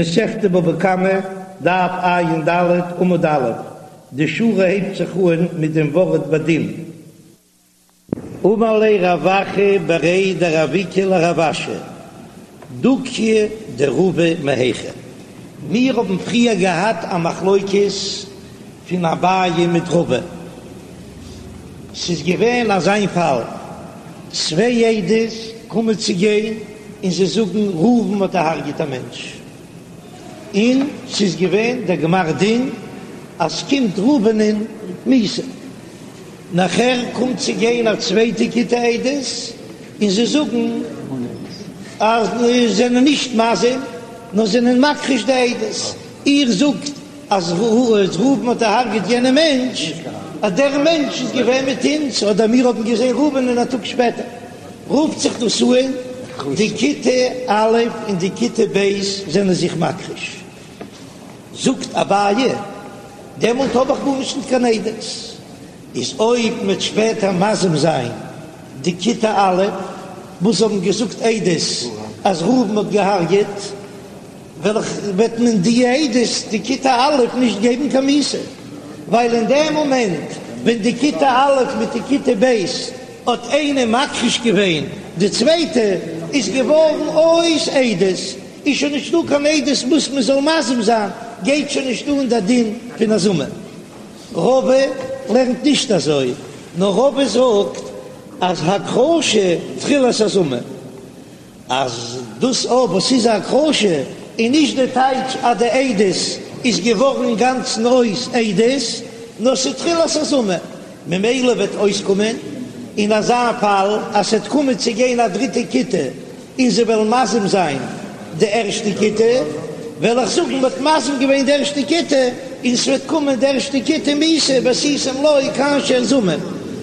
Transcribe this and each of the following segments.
מסכת בבא קמא, דף ע"ד, עמוד א', די שורה הייבט זיך אן מיט דעם ווארט בדין. אמר ליה רב אחא בריה דרב איקא לרב אשי, דוכיא דרבא מהיכא? מיר האבן פריער געהאט א מחלוקת פון אביי מיט רבא, ס'איז געווען אזא פאל, צוויי עדות קומען צו גיין און זיי זאגן ראובן האט דערהרגעט א מענטש, און ס'איז געווען דער גמר דין אז ס'קומט ראובנ'ען מיתה, נאכער קומט צו גיין א צווייטע כיתה עדות און זיי זאגן אז זיי זענען נישט מזים נאר זענען מכחיש די עדות, איר זאגט אז ראובן האט דערהרגעט יענעם מענטש, אז דער מענטש איז געווען מיט אונז, אדער מיר האבן געזען ראובנ'ען א טאג שפעטער, רופט זיך דאס אן, די כיתה א' און די כיתה ב' זענען זיך מכחיש. זאגט אביי, דעמאלט האב איך גארנישט ניט קיין עדות, איז אויב מ'וועט שפעטער מזים זיין די כיתה א' וואס האבן געזאגט עדות אז ראובן האט געהרגעט, וועט מען די עדות די כיתה א' נישט געבן קיין מיתה, ווייל אין דעם מאמענט ווען די כיתה א' מיט די כיתה ב' האט איינע מכחיש געווען די צווייטע, איז געווארן אויס עדות, איז שוין נישטא קיין עדות וואס מען זאל מזים זיין, גייט שוין נישט אן דער דין פון הזמה. רבא לערנט נישט אזוי, נאר רבא זאגט אז הכחשה תחילת הזמה. אז דאס אויב וואס איז הכחשה איז נישט די טייטש אז די עדות איז געווארן אינגאנצן אויס עדות, נאר ס'איז תחילת הזמה, ממילא וועט אויסקומען אין אזא פאל אז ס'וועט קומען צו גיין א דריטע כיתה און זיי וועלן מזים זיין די ערשטע כיתה, וועל איך זאגן מ'האט מזים געווען די ערשטע כיתה און ס'וועט קומען די ערשטע כיתה מיתה ועשיתם לו כאשר זמם,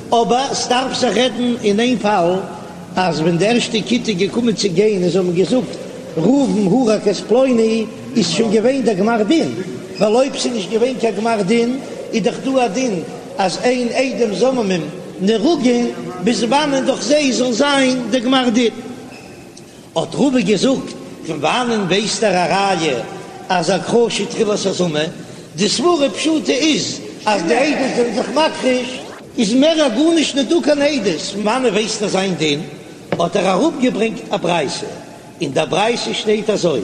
אבער ס'דארף זיך רעדן אין איין פאל. אז ווען די ערשטע כיתה איז געקומען צו גיין און זיי האבן געזאגט ראובן הרג את פלוני איז שוין געווען דער גמר דין, ווייל אויב ס'איז נישט געווען קיין גמר דין איז דאך דא א דין אז אין עדים זוממים נהרגין ביז וואנען דורך זיי זאל זיין דער גמר דין. האט רבא געזאגט, פון וואנען ווייסט ער א ראיה אז הכחשה תחילת הזמה? די סברה פשוטה איז אז די עדות זענען זיך מכחיש, איז מער א גארנישט נישט דא קיין עדות, פון וואנען ווייסט ער זיין דין? האט ער אראפגעברענגט א ברייתא, אין דער ברייתא שטייט אזוי,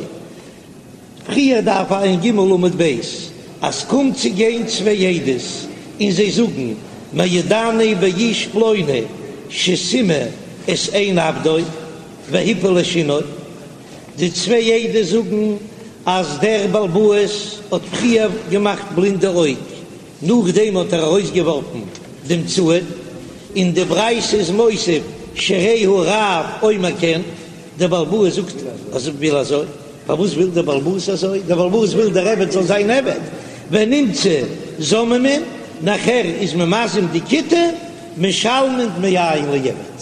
פריער דף ע"ג עמוד ב', אז קומט צו גיין צוויי עדות און זיי זאגן מעידני באיש פלוני שסימא את עין עבדו והפיל את שינו, די צוויי עדות זאגן אז דער בעל הבית האט פריער געמאכט בלינד די אויג, נאכדעם האט ער ארויסגעווארפן דעם צאן, און די ברייתא איז מוסיף שהרי הרב אומר כן, דער בעל הבית זאגט אז ער וויל אזוי, פארוואס וויל דער בעל הבית אזוי? דער בעל הבית וויל דער עבד זאל זיין עבד, ונמצאו זוממין, נאכער איז מען מזים די כיתה, משלמין דמי עין לעבד.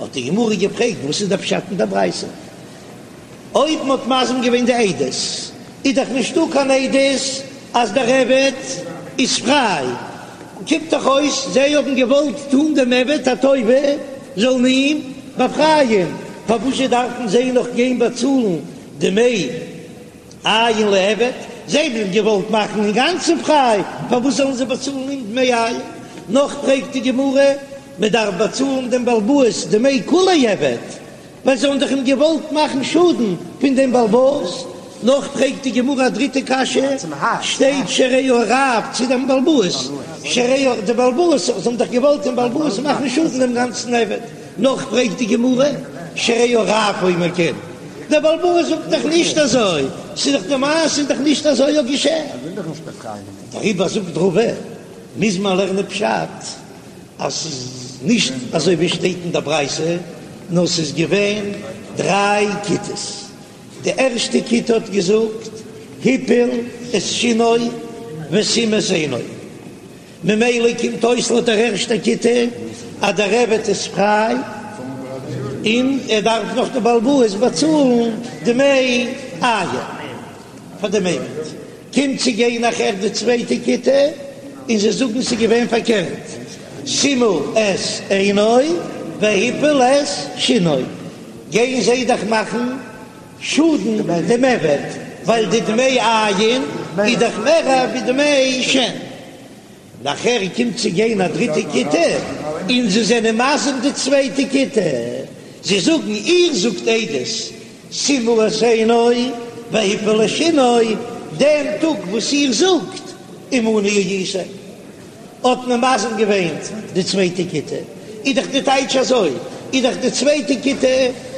האט די גמרא געפרעגט וואס איז דער פשט אין דער ברייתא? אויב מען האט מזים געווען די עדות איז דאך נישטא קיין עדות אז דער עבד איז פריי, קומט דאך אויס זיי האבן געוואלט טון דעם עבד א טובה זאלן אים באפרייען, פארוואזשע דארפן זיי נאך גיין באצאלן דמי עין לעבד, זיי האבן אים געוואלט מאכן אינגאנצן פריי, פארוואס זאלן זיי באצאלן אים דמי עין? נאך פרעגט די גמרא, מען דארף באצאלן דעם בעל הבית דמי כוליה עבד, ווייל זיי האבן דאך אים געוואלט מאכן שאדן פון דעם בעל הבית. נאך פרעגט די גמרא א דריטע קשיא, שטייט שהרי הרב צו דעם בעל הבית, שהרי די בעל הבית, זיי האבן דאך געוואלט דעם בעל הבית מאכן שאדן דעם גאנצן עבד. נאך פרעגט די גמרא, שהרי הרב אומר כן, דער בעל הבית זאגט דאך נישט אזוי, ס'איז דאך די מעשה איז דאך נישט אזוי האט געשען. דעריבער זאגט רבא, מוז מען לערנען פשט אז ס'איז נישט אזוי ווי שטייט אין דער ברייתא, נאר ס'איז געווען דריי כיתות, די ערשטע כיתה האט געזאגט הפיל את שינו וסימא את עינו, ממילא קומט אויס לויט דער ערשטער כיתה אז דער עבד איז פריי און ער דארף נאך די בעל הבית באצאלן דמי עין פאר דעם עבד. קומט צו גיין נאכער די צווייטע כיתה און זיי זאגן ס'איז געווען פארקערט, סימא את עינו והפיל את שינו, גייען זיי דאך מאכן שאדן דעם עבד. ווייל די דמי עין איז דאך מער ווי דמי שן. נאכער קומט צו גיין א דריטע כיתה און זיי זענען מזים די צווייטע כיתה, זיי זאגן איר זאגט עדות סימא את עינו והפיל את שינו, דעם טאג וואס איר זאגט עמנו הייתם האט מען מזים געווען די צווייטע כיתה, איז דאך די טייטש אזוי, איז דאך די צווייטע כיתה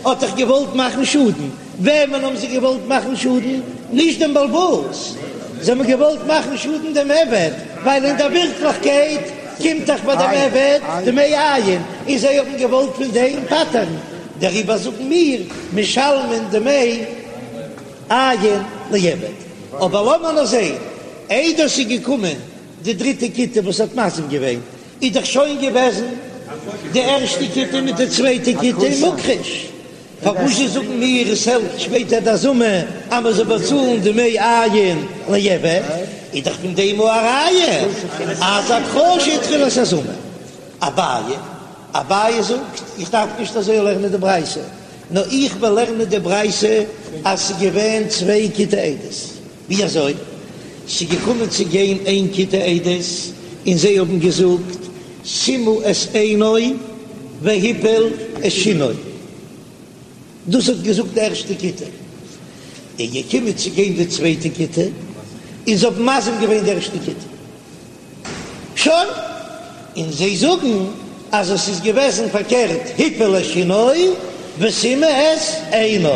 האט דאך געוואלט מאכן שאדן, וועמען האבן זיי געוואלט מאכן שאדן? נישט דעם בעל הבית, זיי האבן געוואלט מאכן שאדן דעם עבד, ווייל אין דער ווירקליכקייט קומט דאך ביי דעם עבד דמי עין, און זיי האבן געוואלט פון דעם פטר'ן, דעריבער זאגן מיר משלמין דמי עין לעבד. אבער לאמיר נאר זען, איידער ס'איז געקומען די דריטע כיתה וואס האט מזים געווען, איז דאך שוין געוועזן די ערשטע כיתה מיט די צווייטע כיתה מוכחש, פארוואס זאגן מיר עס העלפט שפעטער די הזמה אז מען זאל באצאלן דמי עין לעבד, איז דאך פון דעם א ראיה אז הכחשה תחילת הזמה. אביי, אביי זאגט איך דארף נישט אזוי לערנען די ברייתא, נאר איך וועל לערנען די ברייתא אז ס'איז געווען צוויי כיתי עדות. ווי אזוי? ס'איז געקומען צו גיין איין כיתה עדות און זיי האבן געזאגט סימא את עינו והפיל את שינו, דאס האט געזאגט די ערשטע כיתה, איז געקומען צו גיין די צווייטע כיתה און זיי האבן מזים געווען די ערשטע כיתה. שוין, און זיי זאגן אז עס איז געוועזן פארקערט הפיל את שינו וסימא את עינו,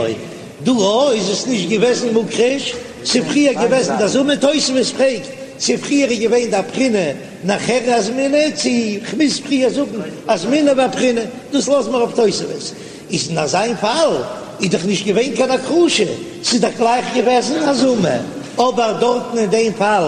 דא איז עס נישט געוועזן מוכחש, ס'איז פריער געוועזן די הזמה, תוספות פרעגט צו פריער איז געווען די הבחנה נאכער אזמינהו, צו כ'מוז פריער זאגן אזמינהו ואבחינהו, דאס לאזן מיר אויף תוספות. איז אין אזיין פאל איז דאך נישט געווען קיין הכחשה, ס'איז דאך גלייך געוועזן הזמה, אבער דארטן אין דעם פאל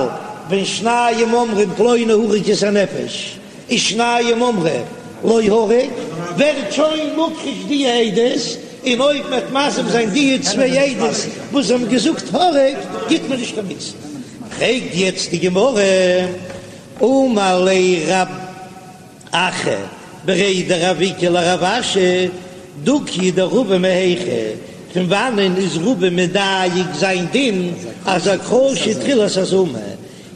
ווען שניים אומרים פלוני הרג את הנפש און שניים אומרים לא הרג, ווערט שוין מוכחש די עדות, און אויב מ'וועט מזים זיין די צוויי עדות וואס האבן געזאגט הרג, גיט מען נישט קיין מיתה. פרעגט יעצט די גמרא, אמר ליה רב אחא בריה דרב איקא לרב אשי, דוקיא דרבא מהיכא, פון וואנען איז רבא מדייק זיין דין אז הכחשה תחילת הזמה?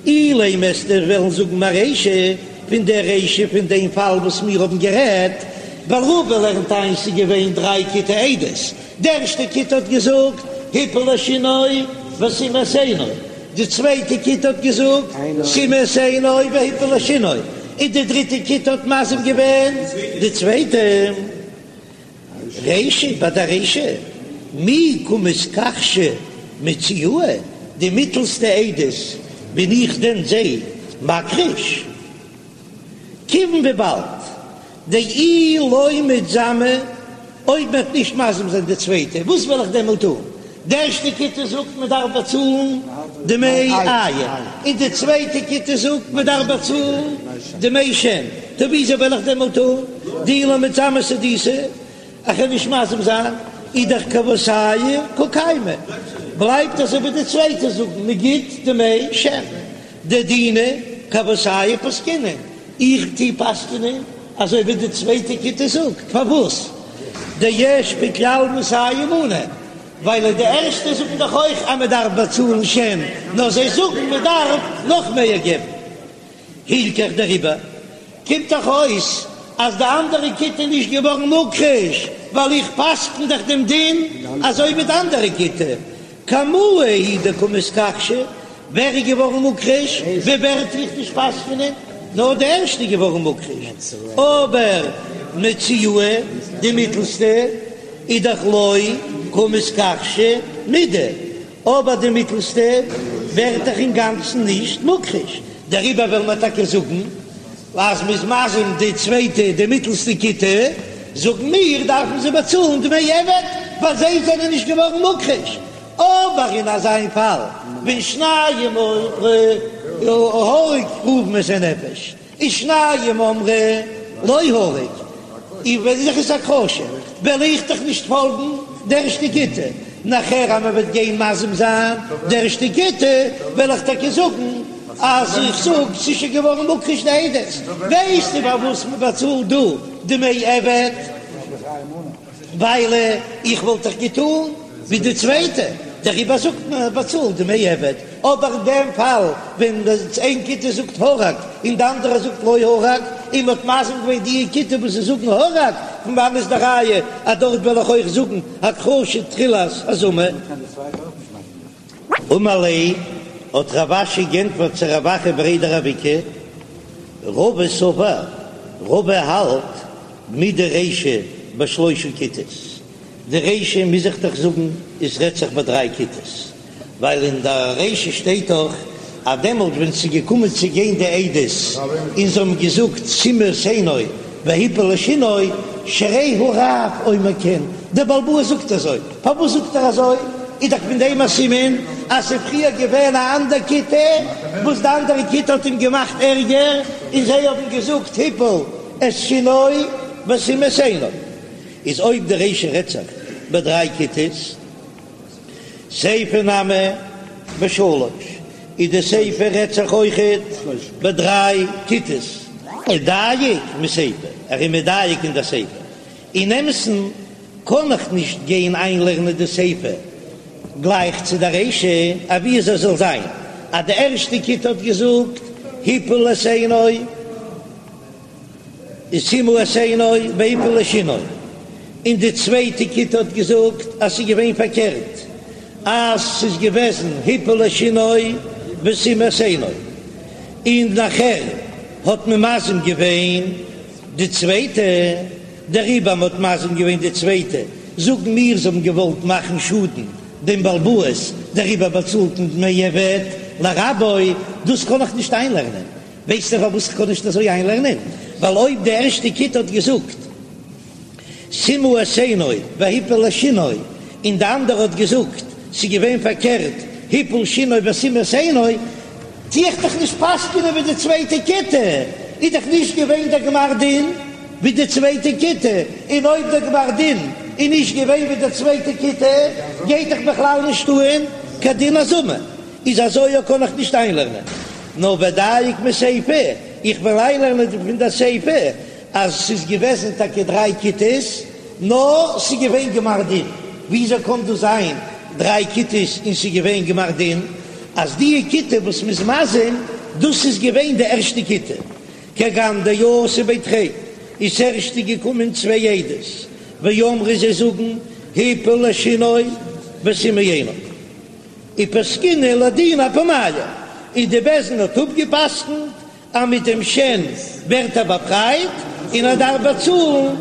אילימא וועסטו וועלן זאגן מרישא, פון דער רישא פון דעם פאל וואס מיר האבן גערעדט, ווייל רבא לערנט איין ס'איז געווען דריי כיתי עדות, די ערשטע כיתה האט געזאגט הפיל את שינו וסימא את עינו, די צווייטע כיתה האט געזאגט סימא את עינו והפיל את שינו, און די דריטע כיתה האט מזים געווען די צווייטע. רישא ביי די רישא מי קא מתכחשא מציעאי, די מיטלסטע עדות בין איך דען זיי מכחיש? כיוון וויבאלד דאי לא מתזמי, אויב מ'וועט נישט מזים זיין די צווייטע, וואס וועל איך דעמאלט טון? די ערשטע כיתה זאגט מען דארף באצאלן דמי עין, און די צווייטע כיתה זאגט מען דארף באצאלן דמי שן, טא וויאזוי וועל איך דעמאלט טון? דאי לא מתזמי סהדותא, איך וועל נישט מזים זיין, איז דאך כוותייהו קא קיימא, בלייבט אזוי ווי די צווייטע זאגן מען גיט דמי שן. דדינא כוותייהו פסקינן, איך טוה פסק'נען אזוי ווי די צווייטע כיתה זאגט, פארוואס דיש בכלל מאתים מנה, ווייל די ערשטע זאגן דאך אויך אז מען דארף באצאלן שן, נאר זיי זאגן מען דארף נאך מער געבן. הילכך דעריבער קומט דאך אויס אז די אנדערע כיתה איז נישט געווארן מוכחש, ווייל איך פסק'ן דאך דעם דין אזוי ווי די אנדערע כיתה, קמאי הוא דקא מתכחשי, ווער איז געווארן מוכחש? ווי ווער טו איך נישט פסק'נען? נאר די ערשטע איז געווארן מוכחש, אבער מציעאי די מיטלסטע איז דאך לא קא מתכחשא מידי, אבער די מיטלסטע ווערט דאך אינגאנצן נישט מוכחש, דעריבער וועלן מיר טאקע זאגן אז מ'איז מזים די צווייטע די מיטלסטע כיתה, זאגן מיר דארפן זיי באצאלן דמי עבד ווייל זיי זענען נישט געווארן מוכחש, אבער אין אזא פאל ווען שניים אמרו הרג ראובן את הנפש און שניים אמרו לא הרג, איז ווען זיך עס הכחשה וועל איך דאך נישט פאלגן די ערשטע כיתה, נאכער אז מען וועט גיין מזים זיין די ערשטע כיתה וועל איך טאקע זאגן אז איך זאג ס'איז שוין געווארן מוכחש די עדות, ווייסטו פארוואס מען באצאלט דא דמי עבד? ווייל איך וואלט דאך געטון ווי די צווייטע. דעריבער זאגט מען ער באצאלט דמי עבד, אבער אין דעם פאל ווען איין כיתה זאגט הרג און די אנדערע זאגט לא הרג, און מ'האט מזים געווען די כיתה וואס זיי זאגן הרג, פון וואנען איז די ראיה אז דארט וועל איך אויך זאגן הכחשה תחילת הזמה? אמר ליה, האט רב אשי גענטפערט צו רב אחא בריה דרב איקא, רבא סבר, רבא האלט מדרישא בשלושה כיתות, די רישא מוז איך דאך זאגן עס רעדט זיך ביי דריי כיתות, ווייל אין די רישא שטייט דאך אז דעמאלט ווען ס'איז געקומען צו גיין די עדות און זיי האבן געזאגט סימא את עינו והפיל את שינו, שהרי הרב אומר כן, דער בעל הבית זאגט אזוי, פארוואס זאגט ער אזוי? איז דאך פון דעם א סימן אז ס'איז פריער געווען א אנדער כיתה וואס די אנדערע כיתה האט אים געמאכט ערגער און זיי האבן געזאגט הפיל את שינו וסימא את עינו. איז אויב די רישא רעדט זיך ביי דריי כיתות, סיפא נמי בשלש, איז די סיפא רעדט זיך אויכעט ביי דריי כיתות. ודייק מסיפא, ער איז מדייק אין די סיפא. אין אמת'ן קען איך נישט גיין איינלערנען די סיפא גלייך צו די רישא, אבי עס זאל זיין אז די ערשטע כיתה האט געזאגט הפיל את עינו, סימא את עינו והפיל את שינו, און די צווייטע כיתה האט געזאגט אז ס'איז געווען פארקערט, אז ס'איז געוועזן הפיל את שינו וסימא את עינו, און נאכער האט מען מזים געווען די צווייטע, דעריבער מ'האט מזים געווען די צווייטע, זאגן מיר זיי האבן געוואלט מאכן שאדן דעם בעל הבית, דעריבער באצאלט מען דמי עבד לרבו, דאס קען איך נישט איינלערנען. ווייסטו פארוואס איך קען נישט אזוי איינלערנען? ווייל אויב די ערשטע כיתה האט געזאגט סימא את עינו והפיל את שינו, און די אנדערע האט געזאגט ס'איז געווען פארקערט הפיל שינו וסימא את עינו, טו איך דאך נישט פסק'נען ווי די צווייטע כיתה, איז דאך נישט געווען דער גמר דין ווי די צווייטע כיתה, און אויב דער גמר דין איז נישט געווען ווי די צווייטע כיתה, גייט דאך בכלל נישט אהן קיין דין הזמה. איז אזוי קען איך נישט איינלערנען, נאר ודייק מסיפא, איך וועל איינלערנען פון דער סיפא אז ס'איז געוועזן טאקע דריי כיתות, נאר ס'איז געווען גמר דין, וויאזוי קען דאס זיין דריי כיתות און ס'איז געווען גמר דין אז די כיתה וואס מ'איז מזים דאס איז געווען די ערשטע כיתה, כגון דאתו בי תרי, איז ס'ערשטע געקומען צוויי עדות, ואמרי זיי זאגן הפיל את שינו וסימא עינו. ופסקינהו לדינא אפומייהו, און די בית דין האט אפגעפסקנט אז מיט דעם שן ווערט ער באפרייט און ער דארף באצאלן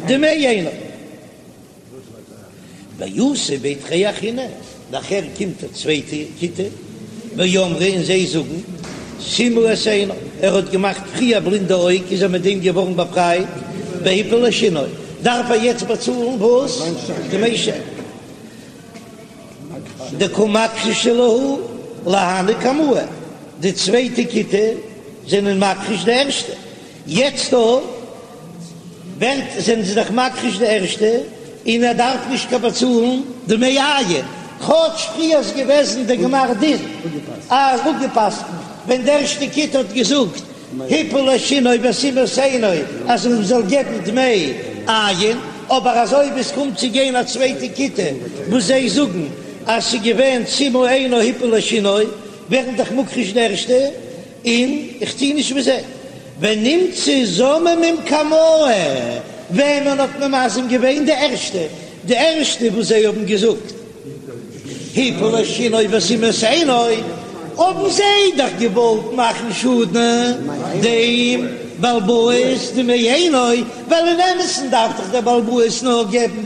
דמי עינו. ואתו בי תרי אחריני, נאכער קומט א צווייטע כיתה, ואמרי און זיי זאגן סימא את עינו, ער האט געמאכט פריער בלינד די אויג איז ער מיט דעם געווארן באפרייט, והפיל את שינו, דארף ער יעצט באצאלן וואס? דמי שן. דקא מכחשי להו להני קמאי, די צווייטע כיתה זענען מכחיש די ערשטע, יעצט דא ווערט זענען זיי דאך מכחיש די ערשטע און ער דארף נישט קיין באצאלן דמי עין, כאטש פריער איז געוועזן די גמר דין אז אפגעפסקנט ווען די ערשטע כיתה האט געזאגט הפיל את שינו וסימא את עינו אז מען זאל געבן דמי עין, אבער אזוי ווי עס קומט צו גיין א צווייטע כיתה וואס זיי זאגן אז ס'איז געווען סימא עינו הפיל את שינו, ווערן דאך מוכחש די ערשטע, און איך טוה נישט ווי זיי. ונמצאו זוממים קמאי, וועמען האט מען מזים געווען די ערשטע? די ערשטע וואס זיי האבן געזאגט. הפיל את שינו וסימא את עינו, האבן זיי דאך געוואלט מאכן שאדן דעם בעל הבית דמי עינו, ווייל אין אמת'ן דארף דאך דער בעל הבית נאר געבן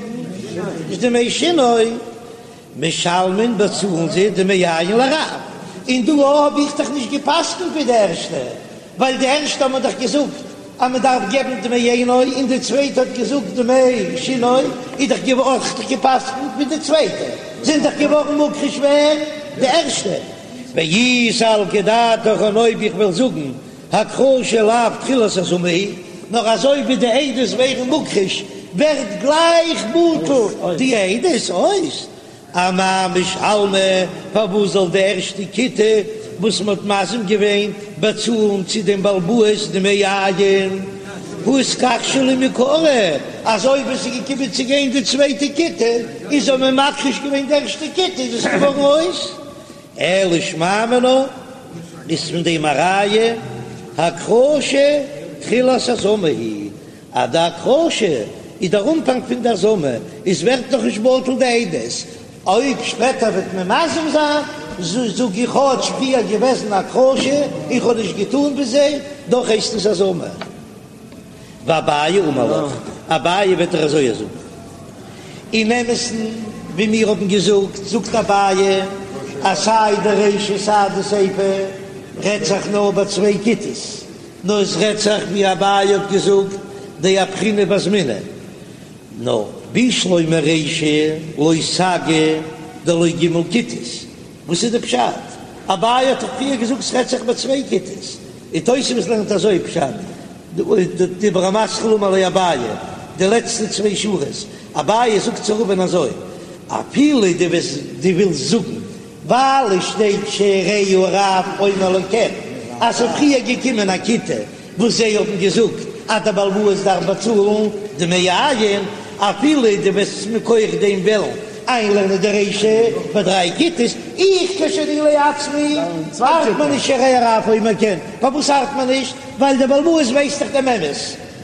דמי שינו, משלמין באצאלן זיי דמי עין לרב, און דא האב איך דאך נישט גע'פסק'נט ווי די ערשטע, ווייל די ערשטע האט מען דאך געזאגט אז מען דארף געבן דמי עינו און די צווייטע האט געזאגט דמי שינו, איז דאך געווארן האב איך געפסקנט ווי די צווייטע, זענען דאך געווארן מוכחש ווער? די ערשטע. ואי סלקא דעתך און אויב איך וועל זאגן הכחשה לאו תחילת הזמה היא, נאר אזוי ווי די עדות ווערן מוכחש ווערט גלייך בטל די עדות אויס, אמאי משלמי, פארוואס זאל די ערשטע כיתה וואס מען האט מזים געווען באצאלן צו דעם בעל הבית דמי עין? הא איתכחשו להו מעיקרא, אז אויב עס איז געקומען צו גיין די צווייטע כיתה און זיי האבן מכחיש געווען די ערשטע כיתה איז עס געווארן אויס, אלא שמע מינה איז פון דעם א ראיה הכחשה תחילת הזמה היא, אז די הכחשה איז דער אנפאנג פון די הזמה, איז ווערט נאך נישט בטל די עדות, אויב שפעטער וועט מען מזים זיין, זאג איך כאטש פריער געוועזן הכחשה, איך האב נישט געטאן ווי זיי, דאך הייסט עס הזמה. ואביי אמר לך, אביי וועט דיר אזוי זאגן. אין אמת'ן, ווי מיר האבן געזאגט, זאגט אביי אז סיי די רישא סיי די סיפא רעדט זיך נאר ביי צוויי כיתות, נאר עס רעדט זיך ווי אביי האט געזאגט דאפכינהו ואזמינהו, נאר בשלמא רישא לא סגי דלא ג' כיתות, וואס איז די פשט? אביי האט דאך פריער געזאגט ס'רעדט זיך ביי צוויי כיתות, און תוספות לערנט אזוי פשט, דיבור המתחיל אמר ליה אביי, די לעצטע צוויי שורות, אביי זאגט צו רבא'ן אזוי, אפילו דו וועסט דו ווילסט זאגן ווייל עס שטייט שהרי הרב אומר לו כן אז ס'איז פריער געקומען א כיתה וואס זיי האבן געזאגט אז דער בעל הבית דארף באצאלן דמי עין, אפילו דו וועסט מכח דעם וועלן איינלערנען די רישא ביי דריי כיתות, איך כשאני לעצמי ארט מיר נישט שהרי הרב אומר כן, פארוואס ארט מיר נישט? ווייל דער בעל הבית ווייסט דאך דעם אמת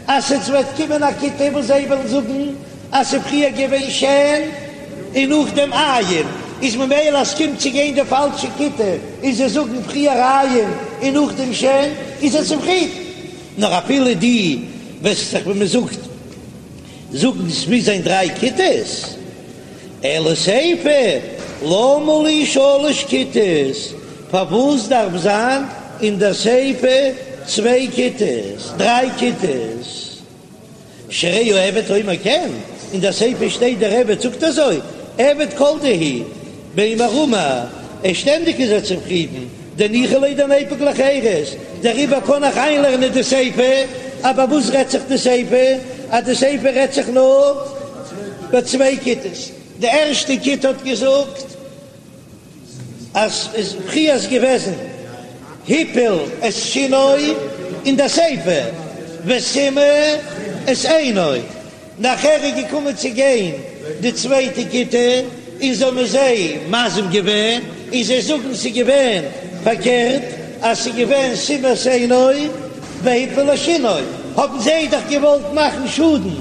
אז עס וועט קומען א כיתה וואס זיי וועלן זאגן אז ס'איז פריער געווען שן און נאכדעם עין, איז ממילא אז ס'קומט צו גיין די פאלשע כיתה און זיי זאגן פריער עין און נאכדעם שן, איז ער צופרידן. נאר אפילו דו וועסט זיך ווי מ'זאגט זאגן ס'מוז זיין דריי כיתות, אלא סיפא למה לי שלש כיתות, פארוואס דארף זיין אין דער סיפא צוויי כיתות, דריי כיתות? שהרי העבד אומר כן, אין דער סיפא שטייט דער עבד זאגט אזוי, עבד כל דהו, מימר אמר, ער שטענדיג איז ער צופרידן, דניחא ליה דניפוק לחירות, דעריבער קען איך איינלערנען די סיפא, אבער וואס רעדט זיך די סיפא? אז די סיפא רעדט זיך נאר ביי צוויי כיתות, די ערשטע כיתה האט געזאגט, אז איז פריער איז געוועזן הפיל את שינו אין די סיפא וסימא את עינו, נאכער איז געקומען צו גיין די צווייטע כיתה און זיי האבן זיי מזים געווען און זיי זאגן ס'איז געווען פארקערט אז ס'איז געווען סימא את עינו והפיל את שינו, האבן זיי דאך געוואלט מאכן שאדן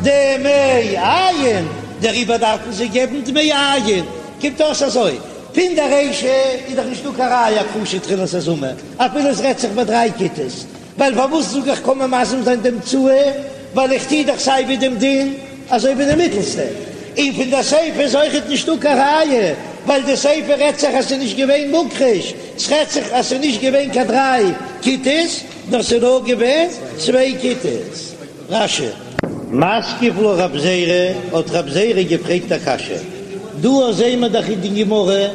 דמי עין דעריבער דארפן זיי געבן דמי עין. קומט אויס אזוי, פון די רישא איז דאך נישטא קיין ראיה הכחשה תחילת הזמה, אפילו עס רעדט זיך ביי דריי כיתות, ווייל פארוואס זאג איך קען מען מזים זיין די אמצעי, ווייל איך טוה דאך סיי ווי דעם דין אזוי ווי די מיטלסטע, און פון די סיפא איז אויכעט נישטא קיין ראיה, ווייל די סיפא רעדט זיך אז ס'איז נישט געווען מוכחש, ס'רעדט זיך אז ס'איז נישט געווען קיין דריי כיתות, נאר ס'איז נאר געווען צוויי כיתות. רש"י. מתקיף לה רב זירא, האט רב זירא געפרעגט א קשיא, דא זעהן מיר דאך אין די גמרא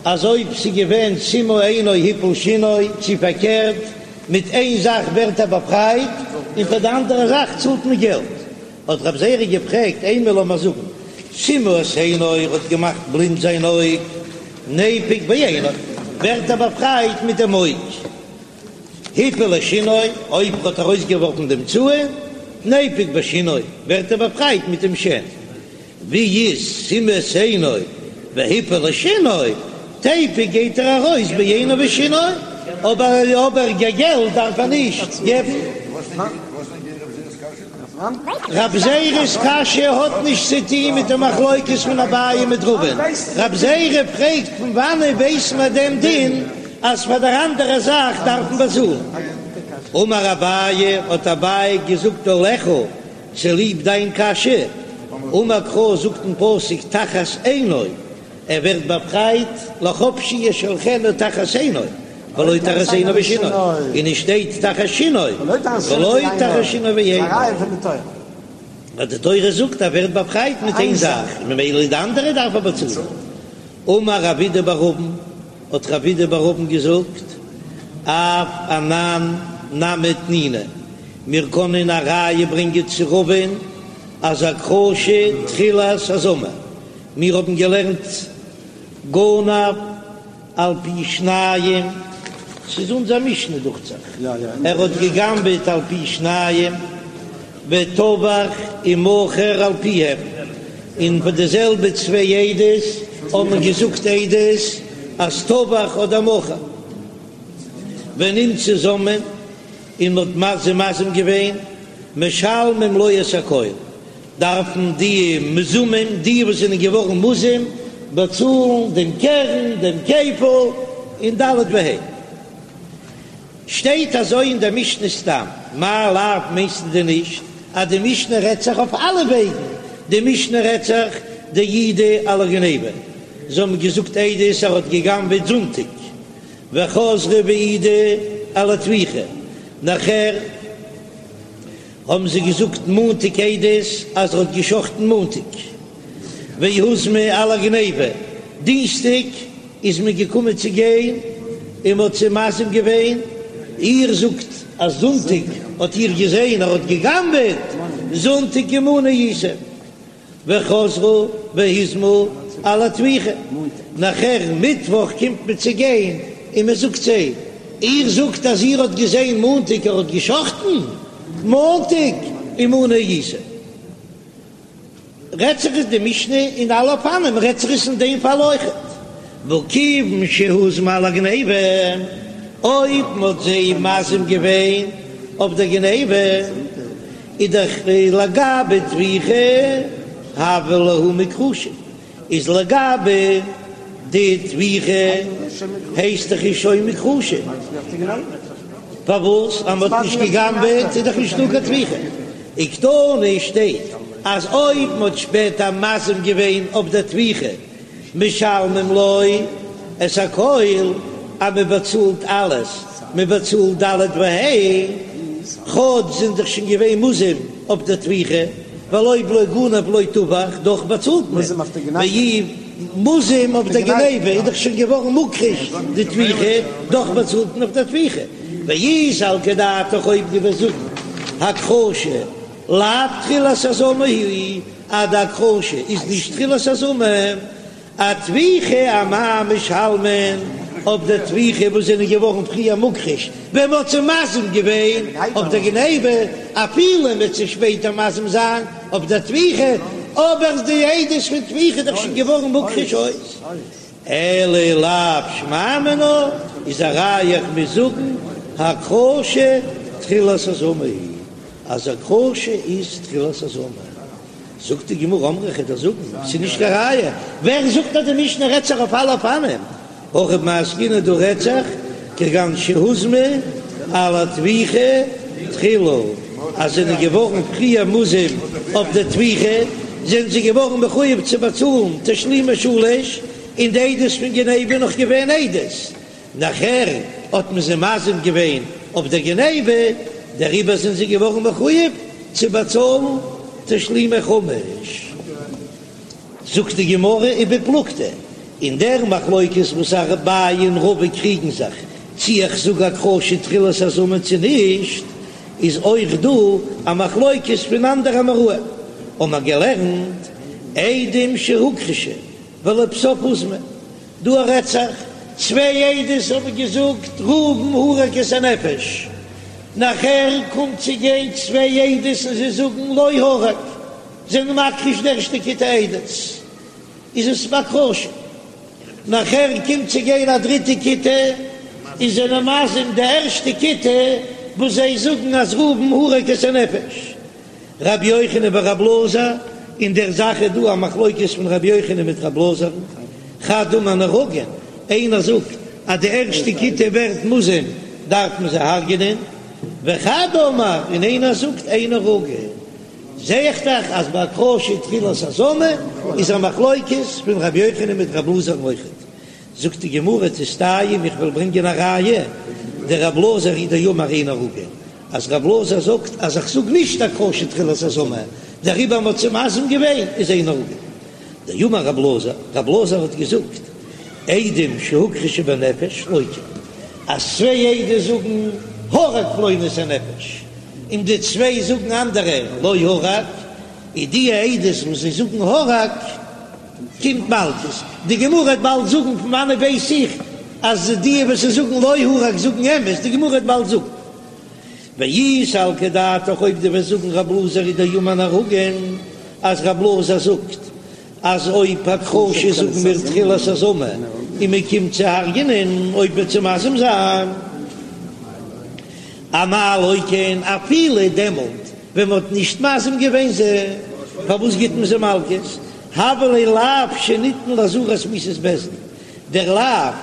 אז אויב ס'איז געווען סימא עינו הפיל שינו, צו פארקערט, מיט איין זאך ווערט ער באפרייט און פאר די אנדערע זאך צאלט מען געלט, האט רב זירא געפרעגט, אימא לאמיר זאגן, סימא את עינו ער האט געמאכט בלינד זיין אויג, ניפוק בעינו, ווערט ער באפרייט מיט דעם אויג. הפיל את שינו, אויב ער האט ארויסגעווארפן דעם צאן, ניפוק בשינו, ווערט ער באפרייט מיט דעם שן. ווי איז סימא את עינו והפיל את שינו, תיפוק גייט ער ארויס בעינו ושינו, אבער אבער געלט דארף ער נישט געבן. רב זירא'ס קשיא האט נישט צו טוהן מיט די מחלוקת פון אביי מיט רבא'ן, רב זירא פרעגט פון וואנען ווייס מען דעם דין אז פאר דער אנדערע זאך דארף מען באצאלן? אמר אביי, האט אביי געזאגט עליך, צוליב דיין קשיא, אמר קרא זאגט אין פסוק תחת עינו, ער ווערט באפרייט לחפשי ישלחנו תחת עינו, ולא תחת עינו ושינו, און עס שטייט תחת שינו, ולא תחת שינו ועינו. ווייל די תורה זאגט ער ווערט באפרייט מיט איין זאך, ממילא די אנדערע דארף ער באצאלן. אמר רב אידי בר אבין, האט רב אידי בר אבין געזאגט, אף אנן נמי תנינא, מיר קענען א ראיה ברענגען צו רבא'ן אז הכחשה תחילת הזמה, מיר האבן געלערנט גנב על פי שניים, ס'איז אונזער משנה דוכט זיך, ער האט געגנבעט על פי שניים. וטבח ומכר על פיהם, און פון די זעלבע צוויי עדות האבן געזאגט עדות אז טבח אדער מכר. ונמצאו זוממין, און מ'האט זיי מזים געווען, משלמים לו את הכל, דארפן די מוזמים, די וואס זענען געווארן מוזם, באצאלן דעם קרן, דעם כפל, און ד' וה'. שטייט אזוי אין דער משנה סתם, מאי לאו מיינסטו דען נישט אז די משנה רעדט זיך אויף אלע וועגן, די משנה רעדט זיך דהעידו על הגניבה, זיי האבן געזאגט עדות ער האט גע'גנב'עט זונטאג, וחזרו והעידו על הטביחה, נאכער האבן זיי געזאגט מאנטאג עדות אז ער האט גע'שחט'ן מאנטאג, והוזמו על הגניבה, דינסטאג איז מען געקומען צו גיין און מען האט זיי מזים געווען, איר זאגט אז זונטאג האט איר געזען ער האט גע'גנב'עט, זונטאג עמנו הייתם, וחזרו והוזמו על הטביחה, נאכער מיטוואך קומט מען צו גיין און מען זאגט זיי, איר זאגט אז איר האט געזען מאנטאג ער האט גע'שחט'ן, מאנטאג עמנו הייתם. רעדט זיך עס די משנה אין אלע אופנים, רעדט זיך עס אין דעם פאל אויכעט, והא כיוון שהוזמו על הגניבה, אויב מ'האט זיי מזים געווען אויף דער גניבה, איז דאך לגבי טביחה הוו להו מוכחשין, איז לגבי די טביחה הייסט דאך איז שוין מוכחשין, פארוואס אז מ'האט נישט גע'גנב'עט איז דאך נישטא קיין טביחה, וקתני שטייט אז אויב מ'האט שפעטער מזים געווען אויף די טביחה משלמים לו את הכל, אז מ'באצאלט אלעס, מ'באצאלט ד' וה', כאטש זענען דאך שוין געווען מוזם אויף די טביחה. ווייל אויב לא גנב לא טבח, דאך באצאלט מען, ואי מוזם אויף די גניבה איז דאך שוין געווארן מוכחש די טביחה, דאך באצאלט מען אויף די טביחה, ואי סלקא דעתך אויב דו וועסט זאגן הכחשה לאו תחילת הזמה היא, אז די הכחשה איז נישט תחילת הזמה, אטביחה אמאי משלמין, אויף די טביחה וואס זענען געווארן פריער מוכחש ווען מ'האט זיי מזים געווען אויף די גניבה, אפילו מ'וועט זיי שפעטער מזים זיין אויף די טביחה, אבער די עדות פון טביחה איז דאך שוין געווארן מוכחש אויס. אלא לאו שמע מינה איז א ראיה איך מוז זאגן הכחשה תחילת הזמה היא, אז הכחשה איז תחילת הזמה. זאגט די גמרא אמרי כ'וועל דיר זאגן, ס'איז נישט קיין ראיה, ווער זאגט אז די משנה רעדט זיך אויף אלע אופנים? הכא במאי עסקינן דא רעדט זיך כגון שהוזמו על הטביחה תחילה, אז זענען געווארן פריער מוזם אויף די טביחה, זענען זיי געווארן מחויב צו באצאלן תשלומי שלש, און די עדות פון גניבה נאך געווען עדות, נאכער האט מען זיי מזים געווען אויף דער גניבה, דעריבער זענען זיי געווארן מחויב צו באצאלן תשלומי חמש. זאגט די גמרא ובפלוגתא, אין דער מחלוקת וואס אביי און רבא קריגן זיך צי איך זאג הכחשה תחילת הזמה צו נישט, איז אויך דא א מחלוקת פון אנדערע אמוראים, האבן מיר געלערנט עדים שהוכחשו ולבסוף הוזמו, דא רעדט זיך, צוויי עדות האבן געזאגט ראובן הרג את הנפש, נאכער קומט צו גיין צוויי עדות און זיי זאגן לא הרג, זענען מכחיש די ערשטע כיתה עדות, איז עס בהכחשה, נאכער קומט צו גיין א דריטע כיתה און זענען מזים די ערשטע כיתה וואס זיי זאגן אז ראובן הרג את הנפש. רבי יוחנן ורבי אלעזר, אין דער זאך איז דא א מחלוקת פון רבי יוחנן מיט רבי אלעזר'ן, חד אמר נהרגין, איינער זאגט אז די ערשטע כיתה ווערט מוזם דארף מען זיי הרג'נען, וחד אמר, און איינער זאגט אין נהרגין, זע איך דאך אז ביי הכחשה תחילת הזמה איז א מחלוקת פון רבי יוחנן מיט רבי אלעזר'ן אויכעט. זאגט די גמרא תסתיים איך וועל ברענגען א ראיה, דרבי אלעזר הוא דאמר אין נהרגין, אז רב אלעזר זאגט אז איך זאג נישט הכחשה תחילת הזמה, דעריבער מ'האט זיי מזים געווען איז אין נהרגין. דאמר רב אלעזר, רב אלעזר האט געזאגט, עדים שהוכחשו בנפש לוקין, אז צוויי עדות זאגן הרג פלוני את הנפש, און די צוויי זאגן אנדערע לא הרג, איז די עדות וואס זיי זאגן הרג קומט מלקות. די גמרא וועט באלד זאגן פון וואנעט ווייס איך אז די וואס זיי זאגן לא הרג זאגן אמת, די גמרא וועט באלד זאגן. ואי סלקא דעתך אויב דו וועסט זאגן רב אלעזר הוא דאמר נהרגין אז רב אלעזר זאגט אז אויב הכחשה זאגן מיר תחילת הזמה און מען קומט צו הרג'נען אויב מ'וועט זיי מזים זיין אמאי לוקין אפילו דעמאלט ווען מען האט נישט מזים געווען זיי פארוואס גיט מען זיי מלקות הוה ליה לאו שניתן לאזהרת מיתת בית דין דער לאו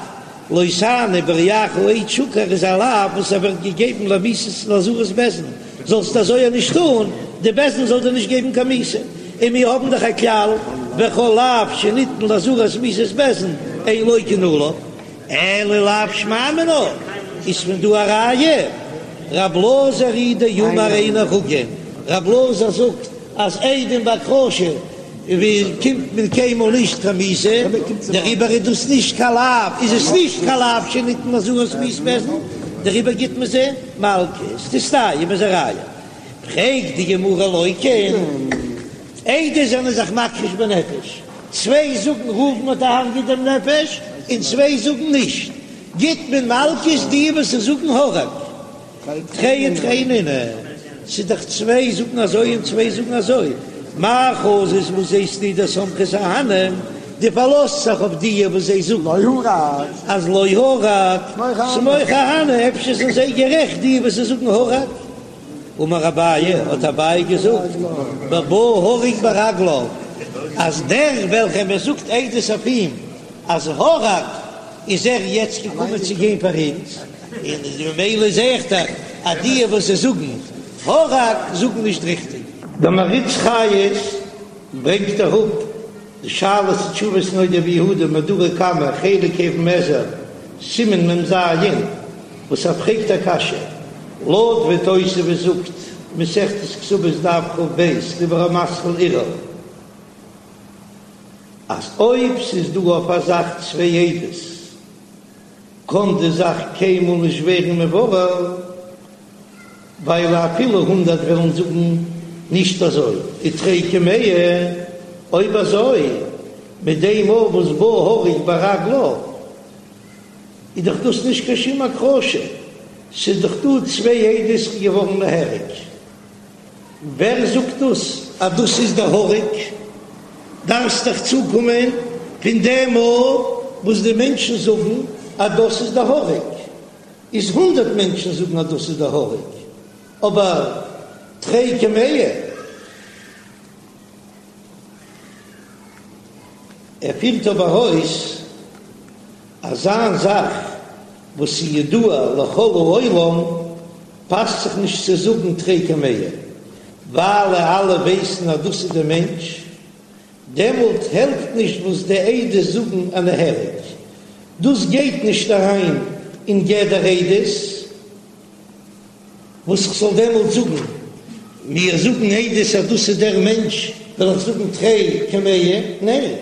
לא תענה ברעך עד שקר איז א לאו וואס ער ווערט געגעבן למיתת לאזהרת בית דין, זאלסט אזוי נישט טון, די בית דין זאל דיר נישט געבן קיין מיתה, און מיר האבן דאך א כלל וכל לאו שניתן לאזהרת מיתת בית דין אין לוקין עליו, אלא לאו שמע מינה, איז פון דא א ראיה, רב אלעזר הוא דאמר אין נהרגין, רב אלעזר זאגט אז עדים בהכחשה ווי קומט מען קיינמאל נישט קיין מיתה, דעריבער איז דאס נישט קיין לאו, איז עס נישט קיין לאו שניתן לאזהרת מיתת בית דין, דעריבער גיט מען זיי מלקות, תסתיים איז א ראיה. פרעגט די גמרא לוקין, עדות זענען זיך מכחיש בנפש, צוויי זאגן ראובן האט דערהרגעט דעם נפש, און צוויי זאגן נישט, גיט מען מלקות די וואס זאגן הרג. תרי ותרי נינהו, ס'איז דאך צוויי זאגן אזוי און צוויי זאגן אזוי, מאי חזית וואס זעסטו דסמכת אהני, דו פארלאזט זיך אויף די וואס זיי זאגן אז לא הרג, סמוך אהני, אפשר זענען זיי גערעכט די וואס זיי זאגן הרג. אמר אביי, האט אביי געזאגט, בבא הרוג ברגליו, אז דער וועלכער מען זאגט עדות אויף אים אז הרג, איז ער יעצט געקומען צו גיין פאר אונז, און ממילא זעה איך דאך אז די וואס זיי זאגן הרג זאגן נישט ריכטיג. דער מהרי"ץ חיות ברענגט אראפ די שאלות ותשובות נודע ביהודה מהדורא קמא חלק אבן העזר סימן מ"ז וואס ער פרעגט א קשיא לויט ווי תוספות זאגט מסכת כתובות דף כ"ב דיבור המתחיל ערעור אז אויב ס'איז דא אויף א זאך צוויי עדות קען די זאך קיינמאל נישט ווערן מבורר, ווייל אפילו הונדערט וועלן זאגן נישט אזוי, ותרי כמאה, אויב אזוי מיט דעם מאל וואס בא הרוג ברגליו איז דאך דאס נישט קיין שום הכחשה, ס'איז דאך דא צוויי עדות ס'איז געווארן נהרג. ווער זאגט דאס אז דאס איז דער הרוג? דארפסט דאך צוקומען פון דעם מאל וואס די מענטשן זאגן אז דאס איז דער הרוג, איז הונדערט מענטשן זאגן אז דאס איז דער הרוג, אבער תרי כמאה. ער פירט אבער אויס אזא זאך וואס איז ידוע לכל העולם פאסט זיך נישט צו זאגן תרי כמאה, ווייל אלע ווייסן אז דאס איז דער מענטש, דעמאלט העלפט נישט וואס די עדות זאגן אז נהרג, דאס גייט נישט אריין אין גדר עדות, וואס איך זאל דעמאלט זאגן, מיר זאגן עדות אז דאס איז דער מענטש, וועל איך זאגן תרי כמאה? ניין.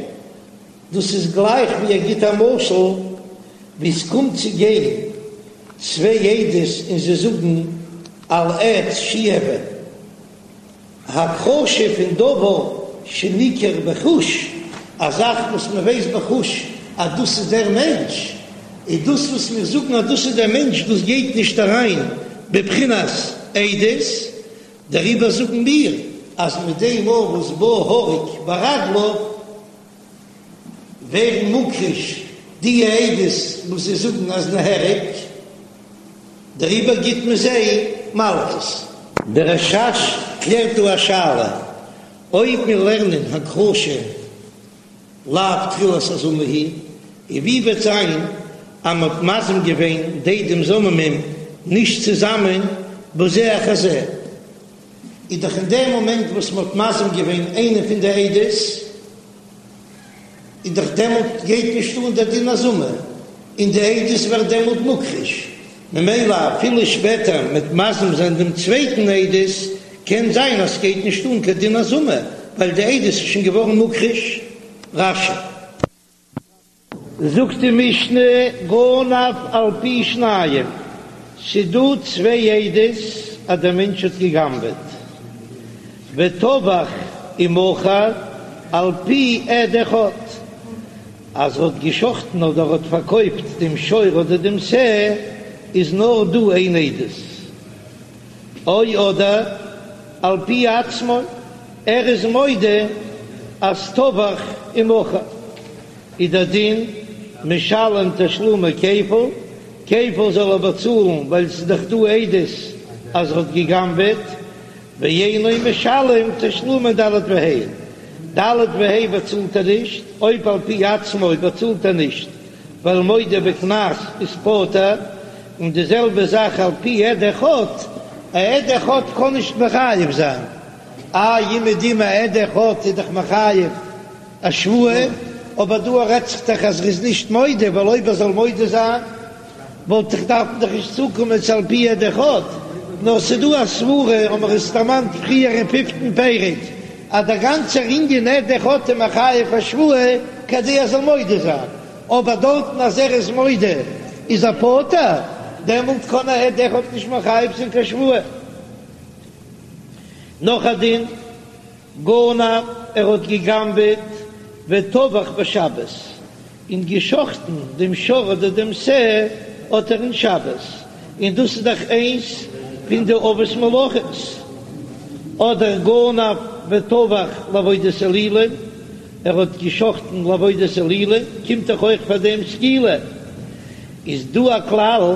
דאס איז גלייך ווי ער גיט א משל ווי עס קומט צו גיין צוויי עדות און זיי זאגן על עץ שהוא אבן, הכחשה פון דבר שניכר בחוש, א זאך וואס מען ווייסט בחוש אז דאס איז דער מענטש, איז דאס וואס מיר זאגן אז דאס איז דער מענטש דאס גייט נישט אריין בבחינת עדות, דעריבער זאגן מיר אז מיט דעם מאל וואס בא הרוג ברגליו ווערן מוכחש די עדות וואס זיי זאגן אז נהרג, דעריבער גיט מען זיי מלקות. דער רש"ש קלערט דא א שאלה, אויב מיר לערנען הכחשה לאו תחילת הזמה היא, און ווי וועט זיין אז מען האט מזים געווען די עדים זוממים נישט צוזאמען בזה אחר זה, איז דאך אין דעם מאמענט וואס מען האט מזים געווען איינע פון די עדות, איז דאך דעמאלט גייט נישט אן דער דין הזמה, און די עדות ווערט דעמאלט מוכחש, ממילא אפילו שפעטער מ'וועט מזים זיין דעם צווייטן עדות, קען זיין אז ס'גייט נישט אן קיין דין הזמה, ווייל די עדות איז שוין געווארן מוכחש. רש"י. זאגט די משנה גנב על פי שניים, ס'דא צוויי עדות אז דער מענטש האט גע'גנב'עט, וטבח ומכר על פי עד אחד, אז ער האט גע'שחט'ן אדער ער האט פארקויפט דעם שור אדער דעם שה, איז נאר דא איין עדות. או אדער על פי עצמו, ער איז מודה אז טבח ומכר איז דער דין משלם תשלומי כפל, כפל זאל ער באצאלן ווייל ס'איז דאך דא עדות אז ער האט גע'גנב'עט, ואינו משלם תשלומי ד' וה', ד' וה' באצאלט ער נישט, אויב על פי עצמו באצאלט ער נישט ווייל מודה בקנס איז פטור, און די זעלבע זאך על פי עד אחד, א עד אחד קען נישט מחייב זיין, איי אומעדום א עד אחד איז דאך מחייב א שבועה, אבער דא רעדט זיך דאך אז ער איז נישט מודה, ווייל אויב ער זאל מודה זיין וואלט איך דארפן דאך נישט צוקומען צו על פי עד אחד, נאר ס'דא א סברה, האבן מיר עס דערמאנט פריער אין פיפטן פרק, אז דער גאנצער ענין עד אחד איז מחייב א שבועה כדי ער זאל מודה זיין, אבער דארטן אז ער איז מודה איז ער פטור, דעמאלט קען א עד אחד נישט מחייב זיין קיין שבועה. נאך א דין. גנב, ער האט געגנבעט וטבח בשבת, און געשחטן דעם שור אדער דעם שה האט ער אין שבת, און דאס איז דאך איינס פון די אבות מלאכות, אדער גנב וטבח לעבודת אלילים, ער האט געשחטן לעבודת אלילים, קומט דאך אויך פאר דעם סקילה, איז דא א כלל.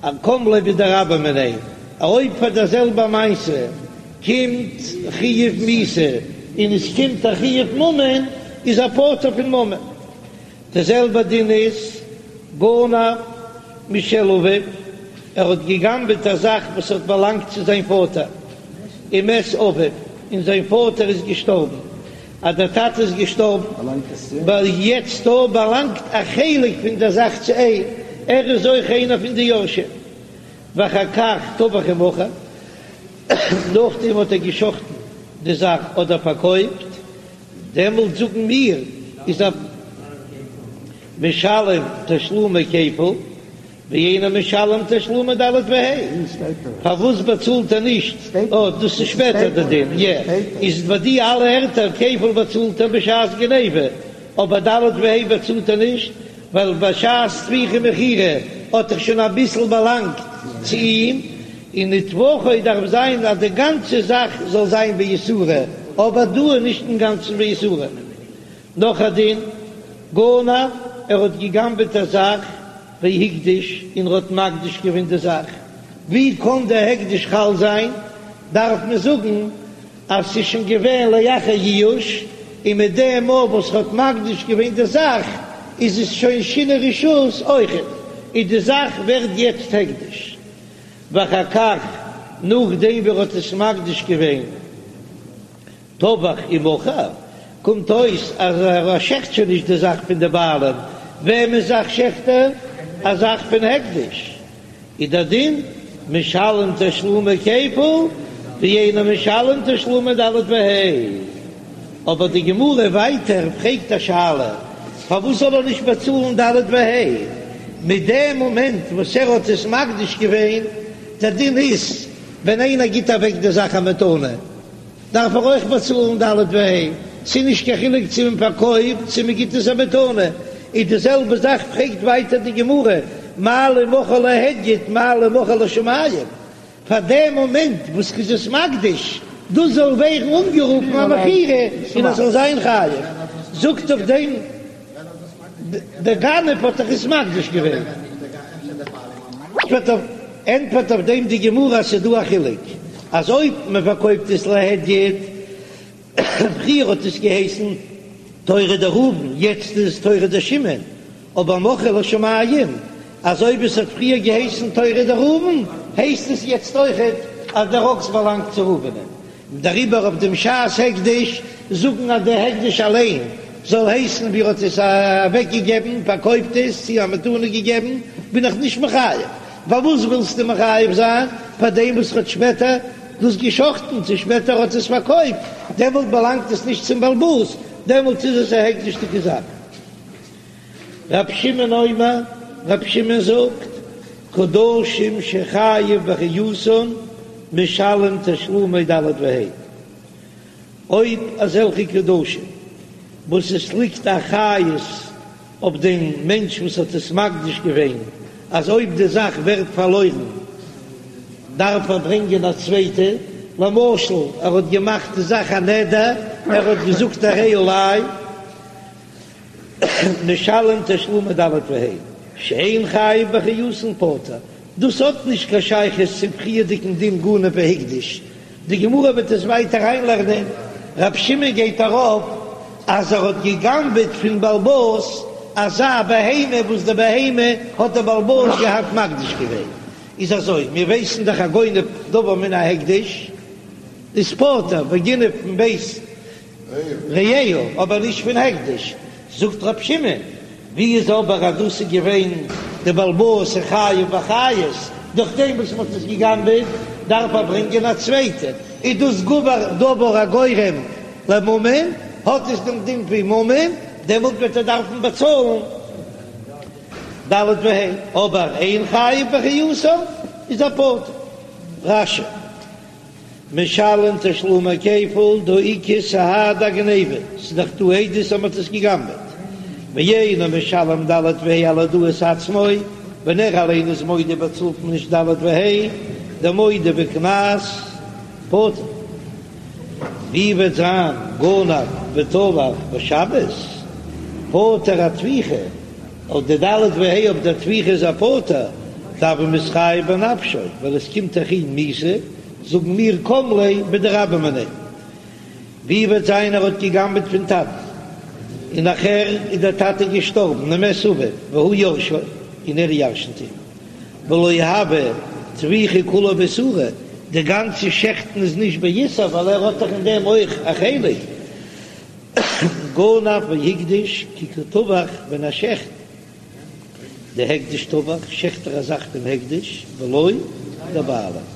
א קם ליה בדרבה מיניה, אויב פאר דער זעלבע מעשה קומט חיוב מיתה און עס קומט א חיוב ממון, איז ער פטור פון ממון. די זעלבע דין איז גנב משל אביו, ער האט געגנבעט א זאך וואס האט באלאנגט צו זיין פאטער, ומת אביו, און זיין פאטער איז געשטארבן, אז דער טאטע איז געשטארבן, ווייל יעצט דא באלאנגט א חלק פון דער זאך צו אים, ער איז אויך איינער פון די יורשים. ואחר כך טבח ומכר, נאכדעם האט ער געשחטן די זאך אדער פארקויפט, דעמאלט זאגן מיר איז ער משלם תשלומי כפל. ואינו משלם תשלומי ד' וה', פארוואס באצאלט ער נישט? אה, דאס איז שפעטער די דין, יע, איז ביי די אלע ערטער כפל באצאלט ער בשעת גניבה, אבער ד' וה' באצאלט ער נישט, ווייל בשעת טביחה ומכירה האט דאך שוין אביסל באלאנגט צו אים, און וטבחו דארף זיין אז די גאנצע זאך זאל זיין באיסורא, אבער דא איז נישט אינגאנצן באיסורא. נאך א דין, גנב, ער האט געגנבעט א זאך, והקדיש, און ער האט מקדיש געווען די זאך, ווי קען די הקדש חל זיין? דארף מען זאגן אז ס'איז שוין געווען לאחר ייאוש, און מיט דעם מאל וואס ער האט מקדיש געווען די זאך איז עס שוין שינוי רשות אויכעט, און די זאך ווערט יעצט הקדש. ואחר כך, נאכדעם ווי ער האט עס מקדיש געווען. טבח ומכר, קומט אויס אז ער שעכט שוין נישט די זאך פון די בעלים, וועמענס זאך שעכט ער? א זאך פון הקדש, איז דער דין משלם תשלומי כפל ואינו משלם תשלומי ד' וה'. אבער די גמרא ווייטער פרעגט א שאלה, פארוואס זאל ער נישט באצאלן ד' וה' מיט דעם מאמענט וואס ער האט עס מקדיש געווען? דער דין איז ווען איינער גיט אוועק די זאך א מתנה, דארף ער אויך באצאלן ד' וה', ס'איז נישט קיין חילוק צו מען פארקויפט צו מען גיט עס א מתנה, איז די זעלבע זאך פרעגט ווייטער די גמרא, מה לי מכרו להדיוט מה לי מכרו לשמים, פאר דעם מאמענט וואס כ'איז עס מקדיש, דאס זאל ווערן אנגערופן א מכירה און עס זאל זיין חייב, זאגט אויף דעם דער גנב האט דאך עס מקדיש געווען. ענטפערט אויף דעם די גמרא אז ס'איז דא א חילוק אז אויב מען פארקויפט עס להדיוט, פריער האט עס געהייסן תורא דראובן יעצט איז עס תורא דשמעון, אבער מכרו לשמים אז אויב עס האט פריער געהייסן תורא דראובן הייסט עס יעצט אויכעט אז דער אקס באלאנגט צו ראובנ'ען. דעריבער אויף דעם שעת הקדש זאגן אז דער הקדש אליין זאל הייסן ווי ער האט עס אוועק געגעבן, פארקויפט עס, צו א מתנה געגעבן, בין איך נישט מחייב. פארוואס ווילסטו מחייב זיין פאר דעם וואס האט שפעטער דאס געשחטן, צו שפעטער האט עס פארקויפט, דעמאלט באלאנגט עס נישט צום בעל הבית, דעמאלט איז עס א הקדש'דיגע זאך. רב שמעון אומר, רב שמעון זאגט, קדשים שחייב באחריותן משלם תשלומי ד' וה'. אויב אזעלכע קדשים וואס עס ליגט א אחריות אויף דעם מענטש וואס האט עס מקדיש געווען, אז אויב די זאך ווערט פארלוירן. דארף ער ברענגען א צווייטע, למשל ער האט געמאכט די זאך א נדר, ער האט געזאגט הרי עלי משלם תשלומי ד' וה', שאין חייב באחריותן פטור, דאס האט נישט קיין שייכות צום פריערדיגן דין גנב והקדש, די גמרא וועט עס ווייטער אריינלערנען, רב שמעון גייט ארויף אז ער האט גע'גנב'עט פון בעל הבית אזא בהמה וואס די בהמה האט דער בעל הבית געהאט מקדיש געווען, איז אזוי, מיר ווייסן דאך הגונב דבר מן ההקדש איז פטור, וגונב מבית רעהו, אבער נישט פון הקדש, זאגט רב שמעון, ווי איז אבער אז דאס איז געווען די בעל הבית איז חייב באחריות, דורך דעם וואס מען האט עס געגנבעט דארף ער ברענגען א צווייטע, איז דאס גבר דבר הגורם לממון, האט עס דעם דין ווי ממון, דעמאלט וועט ער דארפן באצאלן ד' וה', אבער אין חייב באחריותן איז ער פטור. רש"י. משלם תשלומי כפל דהא איכא סהדי אגניבה, ס'איז דאך דא עדות אז מ'האט עס גע'גנב'עט, ואינו משלם ד' וה' על הודאת עצמו, ווען ער אליין איז מודה באצאלט מען נישט ד' וה', דמודה בקנס פטור. ווי וועט זיין גנב וטבח בשבת פטור אטביחה? אויף די ד' וה' אויף דער טביחה איז ער פטור, דהוה מתחייב בנפשו, ווייל עס קומט דאך אים מיתה, זאגן מיר קם ליה בדרבה מיניה. ווי וועט זיין ער האט געגנבעט פון טאטן, און נאכער איז דער טאטע געשטארבן, ומת אביו והוא יורשו, און ער ירשנט אים, ולא הוה טביחה כולה באיסורא, די גאנצע שעכטן איז נישט באיסור ווייל ער האט דאך אין דעם אויך א חלק. גנב והקדיש כי קא טבח ווען ער שעכט דהקדש טבח שעכט ער א זאך פון הקדש ולא דבעלים.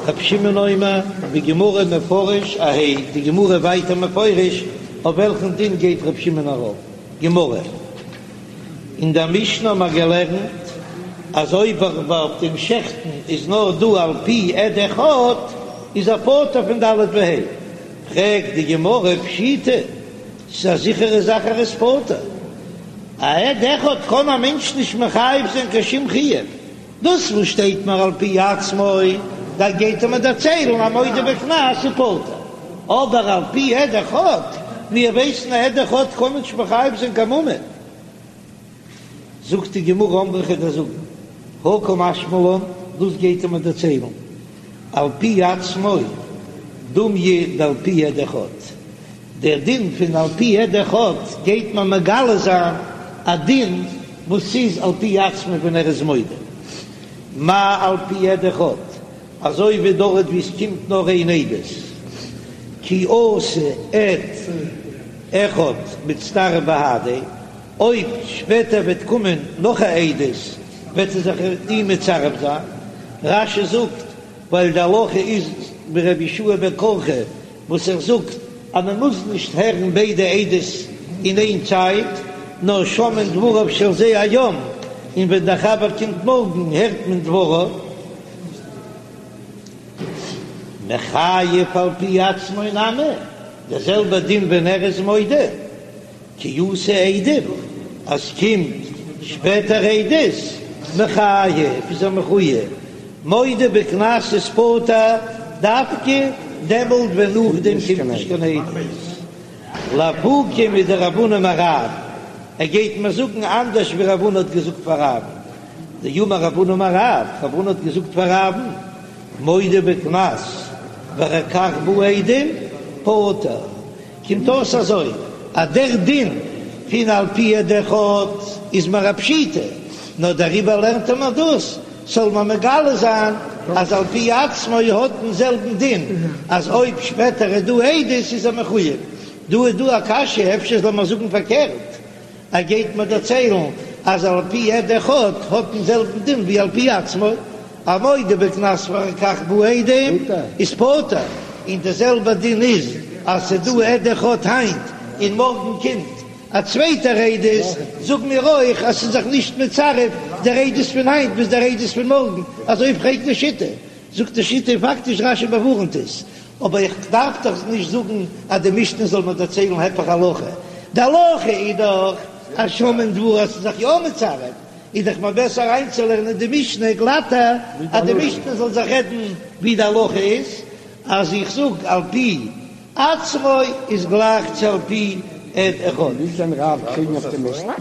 רב שמעון אומר בגמרא מפרש אהייא די גמרא ווייטער מפרש אויף וועלכן דין גייט רב שמעון ארויף גמרא. אין דער משנה האבן מיר געלערנט אז אויב אויף דעם שעכטן איז נאר דא על פי עד אחד איז ער פטור פון ד' וה'. פרעגט די גמרא פשיטא, ס'איז א זיכערע זאך ער איז פטור, א עד אחד קען א מענטש נישט מחייב זיין קיין שום חיוב, דאס וואס שטייט מיר על פי עצמו, דא גייט ער מיר דערציילן אז מודה בקנס איז פטור, אבער על פי עד אחד, מיר ווייסן א עד אחד קען נישט מחייב זיין קיין ממון. זאגט די גמרא אמרי כ'וועל דיר זאגן, הא קא משמע לן, דאס גייט ער מיר דערציילן על פי עצמו דומיא דעל פי עד אחד, דער דין פון על פי עד אחד גייט מען מגלה זיין א דין וואס איז על פי עצמו ווען ער איז מודה, מה על פי עד אחד, אזוי ווי דארט ווי עס קומט נאר איין עדות, כי אתא עד אחד מצטרף בהדיה. אויב שפעטער וועט קומען נאך א עדות וועט ער זיך אים מצרף זיין, רש"י זאגט ווייל די הלכה איז ווי רבי יהושע בן קרחה וואס ער זאגט אז מען מוז נישט הערן ביידע עדות אין איין צייט, נאר שומעין דבריו של זה היום, און ווען דער חבר קומט מארגן הערט מען דבריו. מחייב על פי עצמו נמי, דער זעלבער דין ווען ער איז מודה. כי אתו עדים, אז קומט שפעטער עדות, מחייב איז ער מחוייב, מודה בקנס איז פטור דווקא דעמאלט ווען נאכדעם קומט נישט קיין עדות. לאפוקי מדרב הונא אמר רב, ער גייט מיר זאגן אנדערש ווי רב הונא האט געזאגט פאר רב'ן, דאמר רב הונא אמר רב, רב הונא האט געזאגט פאר רב'ן, מודה בקנס ואחר כך באו עדים, פטור. קומט אויס אזוי, אז דער דין פון על פי עד אחד איז מיר א פשיטא, נאר דעריבער לערנט ער מיר דאס, זאל מען מגלה זיין אז על פי עצמו האט דעם זעלבן דין, אז אויב שפעטער איז דא עדות איז ער מחויב. דא איז דא א קשיא, אפשר זאל מען זאגן פארקערט, ער גייט מיר דערציילן אז על פי עד אחד האט דעם זעלבן דין ווי על פי עצמו, א מודה בקנס ואחר כך באו עדים איז פטור, און די זעלבע דין איז אז ס'איז דא עד אחד היינט און מארגן קומט א צווייטער עדות, זאג מיר אויך אז ס'איז זיך נישט מצרף דער עדות פון היינט ביז דער עדות פון מארגן, אזוי פרעגט די שיטה, זאגט די שיטה פאקטיש רש"י באווארנט עס, אבער איך דארף דאך נישט זאגן אז די משנה זאל מיר דערציילן היפך הלכה, די הלכה איז דאך אז שומעין דבריו אז ס'איז זיך יא מצרף. איז דאך מיר בעסער אריינצולערנען די משנה גלאטער, אז די משנה זאל זיך רעדן ווי די הלכה איז, אז איך זאג על פי עצמו איז גלייך צו על פי עד אחד. ווי קען רב קריגן אויף די משנה?